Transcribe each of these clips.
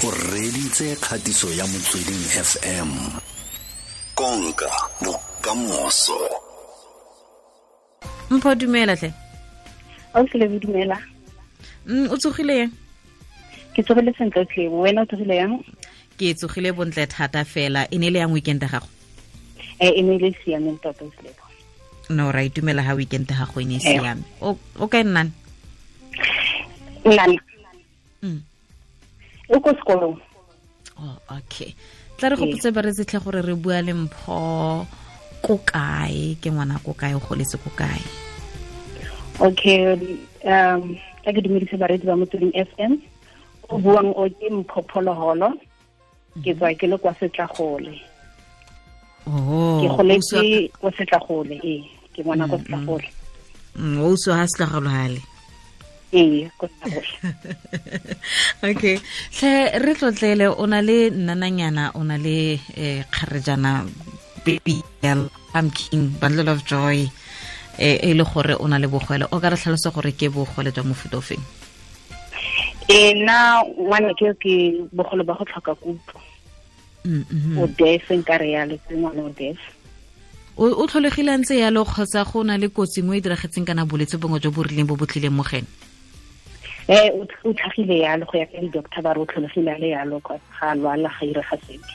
O reditse kgatiso ya Motsweding FM. Konka bokamoso. Mpho, dumela tle. O tlile, dumela. O tsogile yang? Ke tsogile sentle tle. Wena o tsogile yang? Ke tsogile bontle thata fela. E ne le yang weekend ya gago? E ne le siameng tota tle. No, ra itumela ha weekend ya gago e ne e siame. O kae nnane? Nnane. O ko sekolong. Oh, okay. Tla re gopotse ba re tsetlhe gore re bua le Mpho ko kae, ke ngwana ko kae, o goletse ko kae? Okay, tla ke dumedise bareetsi ba Motsweding FM. O buang o ke Mpho Pholoholo. Ke tswa ke le kwa Setlagole. Oh, ke goletse kwa Setlagole, ee, ke ngwana kwa Setlagole. O utswa ha Setlagole hale. Ee, ko Setlagole. Okay. Tlhe re tlotlele, o na le nnananyana, o na le kgarejana, baby girl, pumpkin, bundle of joy, e le gore o na le bogole. O ka re tlhalosa gore ke bogole jwa mofuta o feng? Nna ngwana ke bogole ba go tlhoka kutlo. O deaf, nka re yalo, ke ngwana o deaf. O tlholegile ntse yalo kgotsa go na le kotsi nngwe e diragetseng kana bolwetse bongwe jo bo rileng bo bo tlileng mo gene? O tlhagile yalo go ya ka di-doctor ba re o tlholegile a le yalo, ga a lwala, ga irega sepe.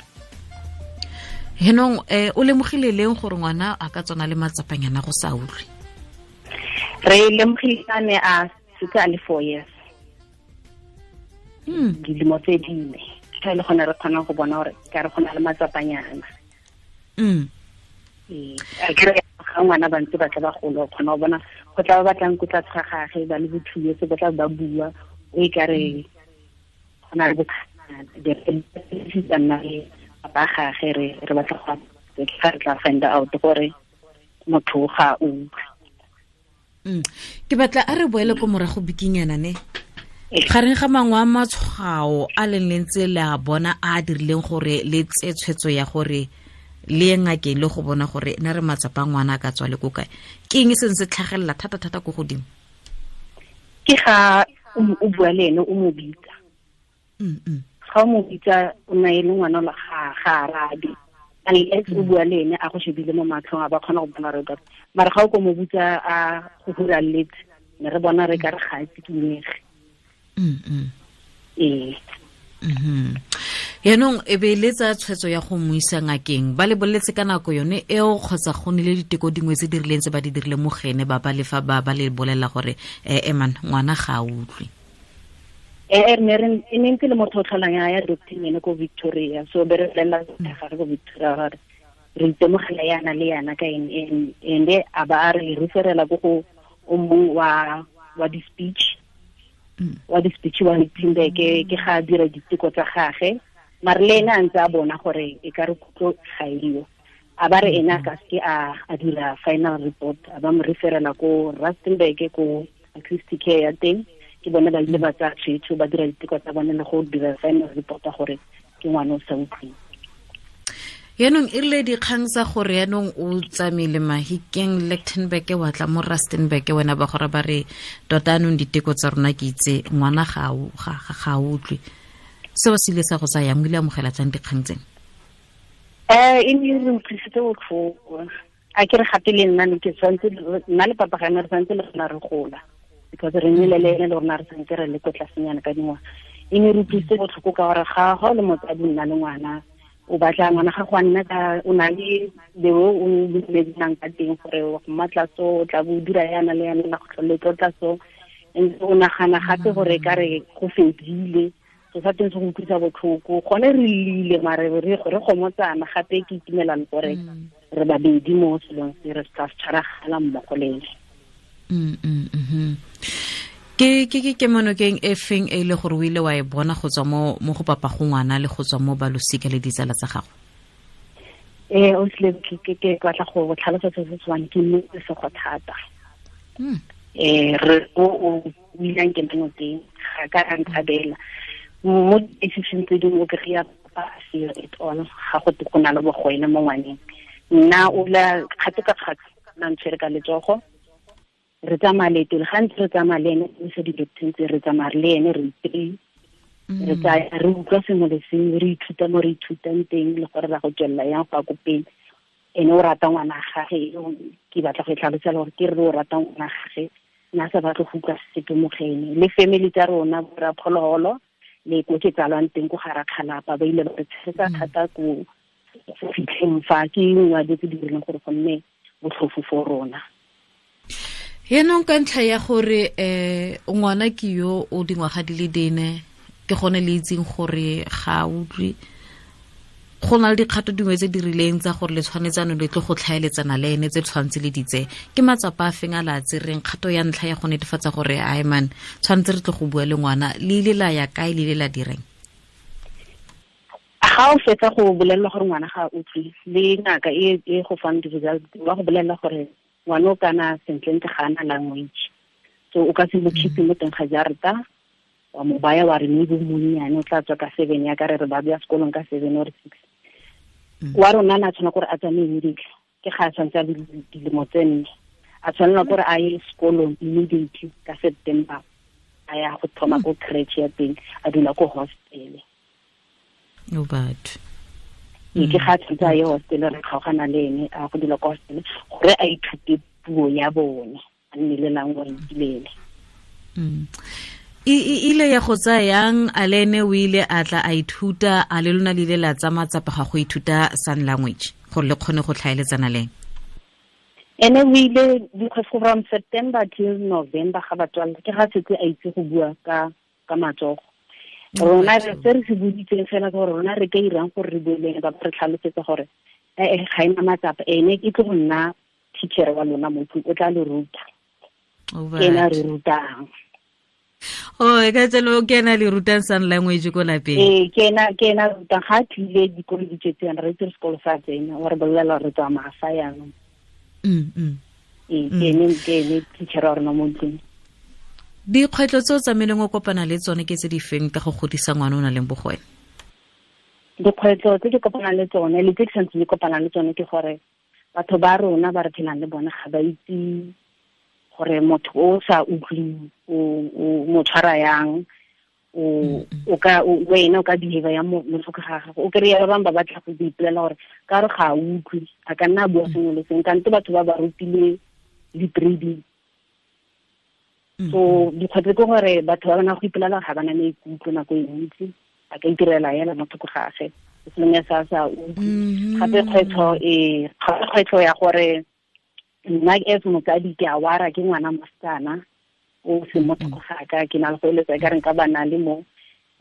Henong, o lemogile leng gore ngwana a ka tswana le matsapanyana go sa utlwe? Re lemogile a ne a setse a le 4 years. Dilemo tse dine. Ka le gona re kgona go bona gore ka re gona le matsapanyana. A ke re ga ngwana ba ntse ba tla ba golo, o kgona go bona go tla ba batlang ko tlase ga gagwe, ba le bo 2 years, ba tla ba bua, o e ka re go na le bothata, nna le papa gagwe re batla go re tla find out gore motho ga o utlwe. Ke batla a re boele ko morago bikinyana ne. Gareng ga mangwe a matshwao a leng le ntse le a bona a dirileng gore le tse tshwetso ya gore le ye ngakeng le go bona gore na re matsapa ngwana a ka tswa le ko kae, ke eng se ntse tlhagelela thata-thata ko godimo? Ke ga o bua le ene o mo bitsa. Ga o mo bitsa o na e le ngwana la ga arabe. Unless o bua le ene a go shebile mo matlhong a ba kgona go bona re ka. Mara ga o ko mo bitsa a go huraletse, ne re bona re ka re ga a tsikinyege. Ee. Yaanong e be le tsa tshwetso ya go mo isa ngakeng, ba le boletse ka nako yone eo kgotsa go nile diteko dingwe tse di rileng tse ba di dirileng mo gene ba ba le fa ba le bolela gore eman ngwana ga a utlwe? Ne re e ne ntse le motho o tlholang ya doctor ene ko Victoria, so be re bolela ga re ko Victoria gore re itemogela yana le yana ka eng, ende a ba a re referela ko go o mongwe wa di-speech. Wa di-speech wa Lichtenburg, ke ga a dira diteko tsa gagwe, mare le ene a ntse a bona gore e ka re kutlo ga eo. A ba re ene a ka seke a dira final report, a ba mo referela ko Rustenburg ko acoustic care ya teng, ke bone ba ile ba tsaya tshwetso, ba dira diteko tsa bone le go dira final report ya gore ke ngwana o sa utlweng. Yaanong e rile dikgang tsa gore yaanong o tsamaile Mahikeng, Lichtenburg, wa tla mo Rustenburg, wena ba gore ba re tota anong diteko tsa rona ke itse ngwana ga a utlwe. Seo se ile sa go tsaya yang, o ile amogela jang dikgang tseno? E ne re utlwisitse botlhoko. A ke re gape le nna ne ke tshwanetse, nna le papa ga ne re tshwanetse le rona re gola, because re nnile le ene le rona re tshwanetse re le ko tlasenyana ka dingwaga. E ne re utlwisitse botlhoko ka gore ga o le motsadi nna le ngwana, o batla ngwana ga go a nna ka, o na le the way o dumelanang ka teng gore wa go mmatla so, o tla bo o dira yana le yana, la go tlhole tlotla so. And o nagana gape gore ka re go fedile, so sa teng se go utlwisa botlhoko. Gone re llile, mare re gomotsana gape ke itumelang gore re babedi mo selong se, re sa tshwaragana mmogo le ene. Ke kemonokeng e feng e le gore o ile wa e bona go tswa mo go papa go ngwana le go tswa mo balosika le ditsala tsa gago? O sile ke batla go tlhalosa se se tshwanang, ke nnete sego thata. Re o ileng ke nonokeng, ga ka a ntshabela. Mo decision tse dingwe o kry-a papa a seo at all, ga go te go na le bogwele mo ngwaneng. Nna o la kgato ka kgato, nna ntshwere ka letsogo, re tsamaya leeto le gantsi re tsamaya le ene, re isa di-doctor tse, re tsamaya le ene re three. Re tsaya re utlwa sengwe le sengwe, re ithuta mo re ithutang teng le gore ra go tswelela yang go ya ko pele. Ene o rata ngwana gage, ke batla go e tlhalosela gore ke re o rata ngwana gage, nna sa batle go utlwa sepe mo go ene. Le family tsa rona bo rra Phologolo le ko ke tsalwang teng ko ga Rakgalapa, ba ile ba re tshegetsa thata ko go fitlheng fa ke nngwe ya dilo tse di dirileng gore go nne botlhofo for rona. Yaanong ka ntlha ya gore ngwana ke yo o dingwaga di le dine, ke gone le itseng gore ga a utlwe, go na le dikgato dingwe tse di rileng tsa gore le tshwanetsane le tlo go tlhaeletsana le ene tse tshwanetse le ditse. Ke matsapa a feng a la tsereng kgato ya ntlha ya go netefatsa gore ai man tshwanetse re tle go bua le ngwana, le ile la ya kae, le ile la direng? Ga o fetsa go bolelelwa gore ngwana ga a utlwe, le ngaka e go fang di-result ba go bolelela gore ngwana o kana sentlentle ga ana language, so o ka se mo keep mo teng ga jarata, wa mo baya wa re maybe monnyane o tla tswa ka 7 ya ka re re ba bya sekolong ka 7 or 6. Wa rona na tshwana gore a tsamaye immediately, ke ga a tshwanetse a le dilemo tse 4, a tshwanela gore a ye sekolong immediately ka September, a ya go thoma ko creche ya teng, a dula ko hostel. O batho. Ee, ke ga a tshwanetse a ye hostel, re kgaogana le ene a go dula ko hostel gore a ithute puo ya bone, a nne le language le ene. E ile ya go tsaya yang a le ene o ile a tla a ithuta, a le lona le ile la tsaya matsapa ga go ithuta sign language gore le kgone go tlhaeletsana le ene? Ene o ile because from September till November ga ba tswalla, ke ga setse a itse go bua ka matsogo. Rona re se re se boditseng fela ke gore rona re ka irang gore re bue le ene, ba re tlhalosetsa gore ga ena matsapa, ene ke tlo go nna teacher wa lona mo tlung, o tla le ruta. Ke ena a re rutang. Oh, e ka tselo ke ena le rutang sign language ko lapeng? Ee, ke ena rutang. Ga a tlile dikolo di tswetse yana, re itse sekolo sa tsena, wa re bolelela re tsamaya fa yanong. Ee, ke ene teacher wa rona mo ntlong. Dikgwetlho tse o tsamaileng o kopana le tsone ke tse di feng ka go godisa ngwana o nang le bogole? Dikgwetlho tse ke kopanang le tsone le tse ke santseng ke kopana le tsone ke gore batho ba rona ba re phelang le bone ga ba itse gore motho o sa utlweng o mo tshwara yang, wena o ka behave yang mo tlhoko ga gago. O kry-a ba bangwe ba batla go ipolela gore ka re ga a utlwe, a ka nna a bua sengwe le sengwe, kante batho ba ba rutile di-trading. So dikgwetlho ke gore batho ba bana go ipolela ga ba na maikutlo nako e ntsi, a ka itirela yela mo thoko ga gagwe, selong ya sa sa utlwe. Gape kgwetlho ya gore nna as motsadi ke a wara ke ngwana mosetsana o se mo thoko ga ka, ke na le go eletsa e ka reng ka ba na le mo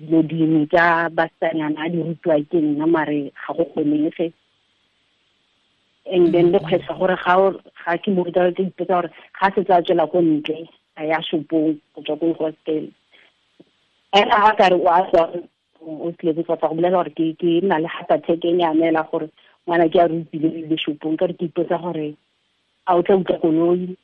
dilo dingwe tsa basetsanyana a di rutiwa ke nna, mare ga go kgonege. And then le kgwetlho gore ga ke mo ruta, ke ipotsa gore ga setse a tswela ko ntle a ya shopong go tswa ko hostel, ena ga ka re o a tswa o tlile go tla go bolela gore ke nna le heart attack e nyane la gore ngwana ke a rutile le shopong, ka re ke ipotsa gore a o tla utlwa koloi,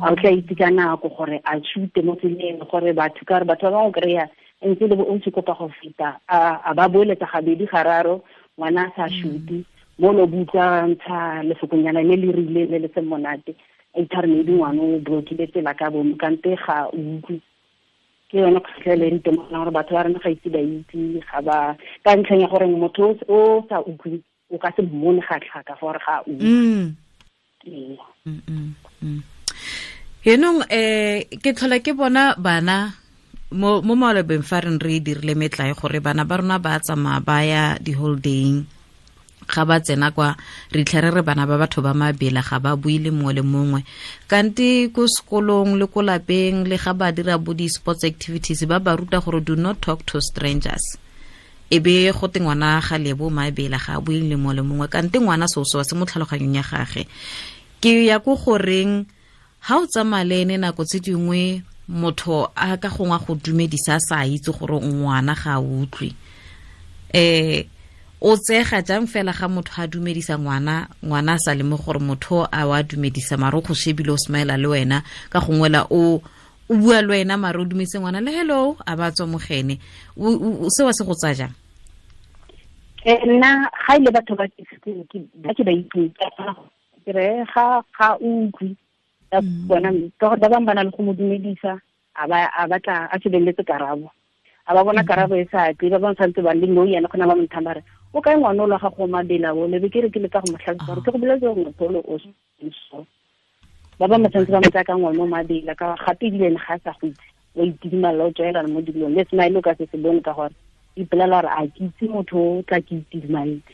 a o tla itse ka nako gore a tshute mo tseleng, gore batho ka re batho ba bangwe kry-a ntse le bo o ntse kopa go feta, a ba boeletsa gabedi gararo, ngwana a sa shute, mo lo butlwa ntsha lefokonyana le le rileng le le seng monate, a itha re maybe ngwana o blokile tsela ka bomo, kante ga o utlwe. Ke yone kgwetlho e le ntemogelang gore batho ba rona ga ise ba itse, ga ba, ka ntlheng ya gore motho o sa utlwe o ka se mmone ga tlhaka gore ga a utlwe. Yaanong, ke tlhola ke bona bana mo malobeng fa re re dirile metlae gore bana ba rona ba tsamaya ba ya di-holidaying, ga ba tsena kwa re tlhere re bana ba batho ba mabela ga ba bue le mongwe le mongwe, kante ko sekolong le ko lapeng le ga ba dira bo di-sports activities ba ba ruta gore do not talk to strangers, e be go te ngwana ga lebo mabela ga a bue le mongwe le mongwe, kante ngwana seo se mo tlhaloganyong ya gage. Ke ya ko goreng ha o tsamaya le ene nako tse dingwe motho a ka gongwe go dumedisa a sa itse gore ngwana ga a utlwe, o tsega jang fela ga motho a dumedisa ngwana, ngwana a sa leme gore motho a wa dumedisa mare o go shebile o smile le wena, ka gongwe la o bua le wena mare o dumedise ngwana le hello a ba tswa mogene, seo se go tsaya jang? Nna ga ile batho ba ke ba ke ba itse, ke re ga utlwe ka bona, ka gore ba bangwe ba na le go mo dumedisa, a ba a batla a shebeletse karabo, A ba bona karabo e sa tle, ba ba santse ba le no yana gona ba mo thamba re o kae ngwana o la gago mabela o lebe ke re ke le ka go mo tlhalosa gore ke go boletse gore motho ole o so. Ba ba mo santse ba mo tsaya ka ngwana o mabela ka gape ebile ene ga a sa go itse, wa itidimalla o tswelela mo dilong le smile o ka se se bone ka gore ipolela gore a ke itse motho o tla ke itidimaletse.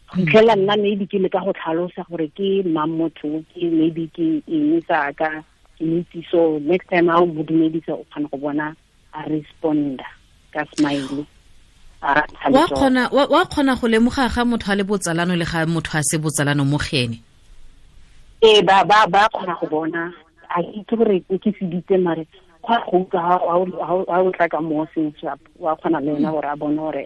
Go fitlhela nna maybe ke le ka go tlhalosa gore ke mang motho, ke maybe ke eng sa ka ke itse. So next time ha o mo dumedisa o kgona go bona a responda ka smile. Wa kgona go lemoga ga motho a le botsalano le ga motho a se botsalano mo gene. Ee, ba kgona go bona. A itse gore ke seditse mare go go utlwa ha o tla ka mo seng sharp, wa kgona le ena gore a bone gore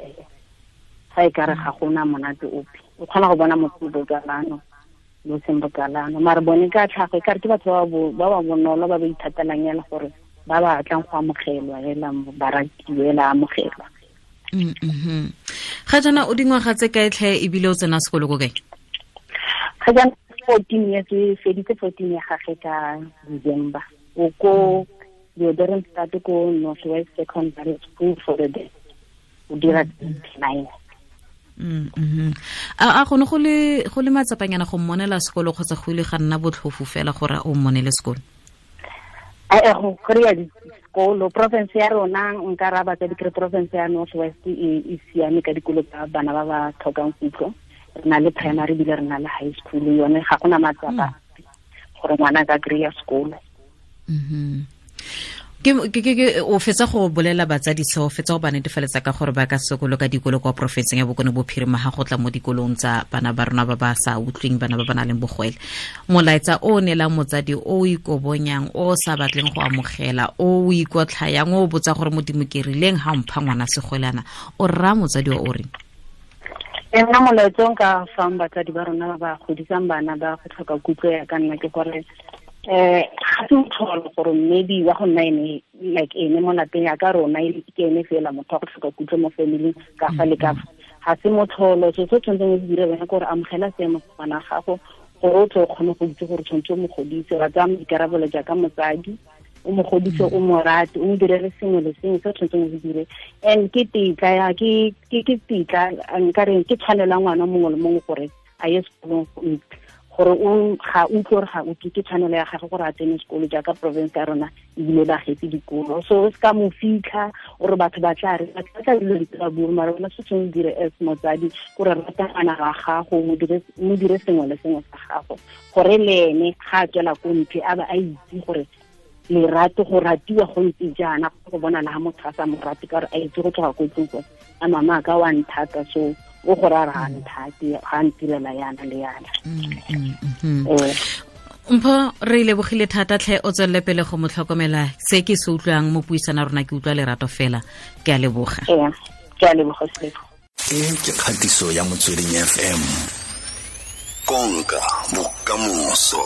ga e kare ga gona monate ope. O kgona go bona motho botsalano lo seng botsalano, mare bone ka tlhago e kare ke batho ba ba bonolo ba ba ithatelang yana gore ba ba tlang go amogelwa hela ba ratiwe hela amogelwa. Ga jaana o dingwaga tse kae tlhe ebile o tsena sekolo ko kae? Ga jaana 14 years, e feditse 14 ya gagwe ka December. O ko Leeudoringstad ko North West Secondary School for the Deaf. O dira 9. A gone go le matsapanyana go mmonela sekolo kgotsa go ile ga nna botlhofo fela gore o mmonele sekolo? A go kry-a dikolo province ya rona nka raya batsadi kere province ya North West e siame ka dikolo tsa bana ba ba tlhokang kutlo. Re na le primary ebile re na le high school, yone ga gona matsapa gore ngwana a ka kry-a sekolo. Ke o fetsa go bolela batsadi seo, fetsa go ba netefaletsa ka gore ba ka sekolo ka dikolo kwa porofenseng ya Bokone Bophirima ga go tla mo dikolong tsa bana ba rona ba ba sa utlweng, bana ba ba nang le bogwele. Molaetsa o neelang motsadi o ikobonyang, o sa batleng go amogela, o ikotlhayang, o botsa gore Modimo ke rileng ha mpha ngwana segwelana, o rra motsadi o reng? Nna molaetsa o nka fang batsadi ba rona ba ba godisang bana ba go tlhoka kutlo ya ka nna ke gore ga se motlholo gore maybe wa go nna ene like ene mo lapeng ya ka rona ke ene fela motho wa go tlhoka kutlo mo family ka fa le ka fa. Ga se motlholo. So se tshwanetseng o se dire wena ke gore amogela seemo sa ngwana gago gore o tle o kgone go itse gore tshwanetse o mo godise, wa tsaya maikarabelo jaaka motsadi, o mo godise, o mo rate, o mo direle sengwe le sengwe se o tshwanetseng o se dire. And ke tetla ke tetla nka reng ke tshwanelo ya ngwana mongwe le mongwe gore a ye sekolong, gore o ga utlwe gore ga utlwe, ke tshwanelo ya gagwe gore a tsene sekolo jaaka province ya rona ebile ba getse dikolo. So o se ka mo fitlha ore batho ba tla re batho ba tla dilo di tla bua, mara wena se tshwanetse o dire as motsadi gore rata ngwana wa gago, mo dire sengwe le sengwe sa gago gore le ene ga a tswela ko ntle a ba a itse gore lerato go ratiwa go ntse jaana, go bona le ga motho a sa mo rate ka gore a itse go tloga ko tlong gore a mama ka wa nthata, so o gore a re ga nthate, ga ntirela yana le yana. Mpho, re lebogile thata tlhe, o tswelele pele go mo tlhokomela. Se ke se utlwang mo puisana rona ke utlwa lerato fela. Ke a leboga. Ke a leboga Seleko. E ke kgatiso ya Motsweding FM. Konka bokamoso.